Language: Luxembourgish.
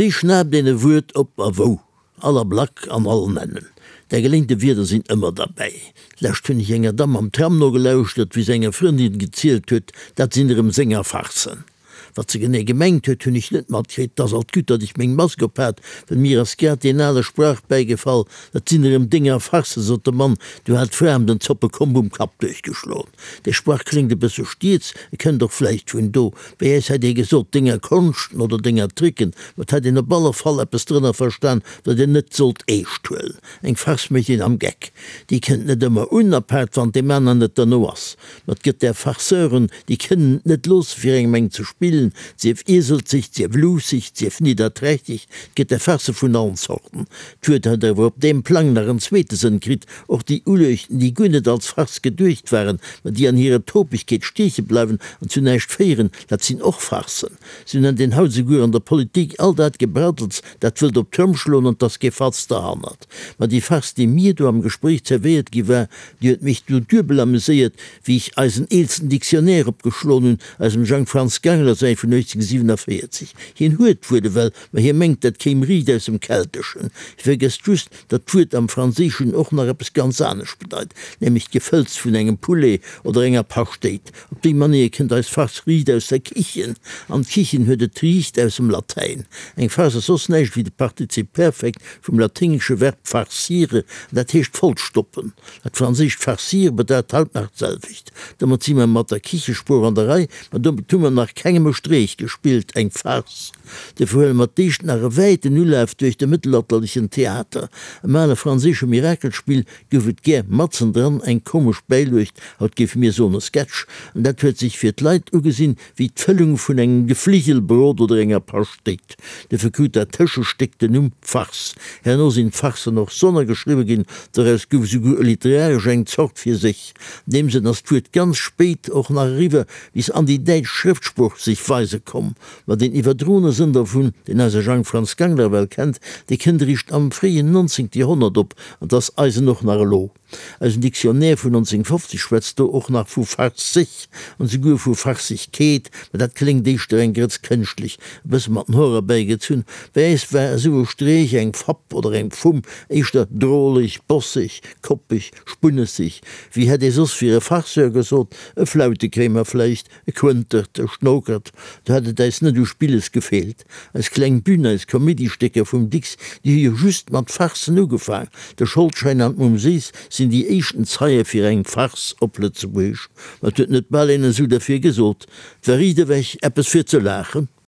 Wéi schnaapt een e Wuert op a wou? All Ablack an all Nennen. Där geléinte Wierder sinn ëmmer derbäi. D'lescht hunn ech enger Damm am Tram nogelauschtert, wéi se enger Frëndin gezielt huet, dat sinn erëm senger Farcen. Wat se genee gemengt huet, hunn ech net matkritt. 't ass alt gutt, datt ech meng Mask op hat, well mir ass grad deen ale Sprach bäigefall, Dat sinn erëm denger Farcen, sot de Mann, du hat d'Fra em den Zoppekomb um Kapp duerchgeschloen. Dee Sprach kléngt e bësse stieds, e kënnt och vläicht vun do. Bei äis hätt ee gesot, denger Konschten oder denger Tricken, ma 't hätt een op alle Fall eppes drënner verstan, wat een net sollt eescht huelen. Eng Farce mécht een am Geck. Déi kënnt net ëmmer un, apaart wann deem aneren net derno ass. Ma 't gëtt där Farceuren, déi kënnen et net loosse fir engem eng ze spillen, sief ieselzeg, sief luusseg, sief nidderträchteg, 't gëtt där Farce vun allen Zorten. D'Wuert huet awer op deem Plang nach en zweete Sënn kritt, och déi Uluechten, déi guer net als Farce geduecht waren, ma déi an hirer Topegkeet stieche bleiwen an zu näischt féieren, dat sinn och Farcen. Sou nennt een haut esouguer an der Politik all dat Gebraddels, dat wëllt op d'Tromm schloen an 't ass kee Fatz derhannert. Ma déi Farce, déi mir do am Gespréich zerwéiert gi war, déi huet mech du duebel ameséiert, wéi ech eisen eelsten Dictionnaire opgeschloen hunn, eisem Jang Franz Gangler säi vun 1847. Hien huet d'Wuert ewell, ma hie mengt, dat kéim riicht aus dem Kelteschen. Hie vergësst just, datt d'Wuert am Franséischen och nach eppes ganz anescht bedeit, nämlech d'Gefëlls vun engem Poulet oder enger Paschtéit. Op déi Manéier kënnt eis Farce riicht aus der Kichen, an d'Kichen huet et riicht aus dem Latäin. Eng Farce ass soss näischt wéi de Partizip Perfekt vum laténgesche Verb farcire, an dat heescht vollstoppen. Dat franséischt farcir bedeit haut nach d'selwecht. Domat si mer mat der Kichesprooch an der Rei, ma domat hu mer nach kengem e Streech gespillt, eng Farce. Dofir huele mer d'éischt nach e wäiten Ulaf duerch de mëttelalterlechen Theater. Am ale franséische Mirakelspill gouf et gär matzendran eng komesch Bäiluecht, haut géife mir soen e Sketch, an dat huet sech fir d'Leit ugesinn wéi d'Fëllung vun engem Gefligelbrot oder enger Paschtéit. Dofir krut dat Tëschestéck den Numm Farce. Herno sinn d'Farcen och sonnergeschriwwe ginn, doraus gouf esouguer literaresch eng Zort fir sech. An deem Sënn ass d'Wuert ganz spéit och nach eriwwer bis an déi däitsch Schrëftsprooch sech weise komm. Ma deen iwwerdroene Sënn dervun, deen eise Jang Franz Gangler well kennt, dee kënnt eréischt am fréien 19. Joerhonnert op, an 't ass eisen och nach elo. Eisen Dictionnaire vun 1950 schwätzt do och nach vu farseg an esouguer vu Farsegkeet, ma dat kléngt éischter eng Grëtz kënschtlech, e bësse mat den Hoer erbäigezunn. Bei äis war esou e Streech, eng Fapp oder eng Fumm éischter droleg, bosseg, koppeg, spunnesseg. Wéi hätt ee soss fir e Farceur gesot? E Flautekréimer vläicht? E Quëntert, e Schnokert, do hätt et äis net u Spilles gefeelt. Eis kleng Bühn, eis Komedistécker vum Dicks, déi hu jo just mat Farcen ugefaang. De Scholdschäin an d'Mumm Séiss sinn déi éischten Zeie fir eng Farce op Lëtzebuergesch. Ma et huet net bal een esou derfir gesot. 't war riit ewech eppes fir ze laachen.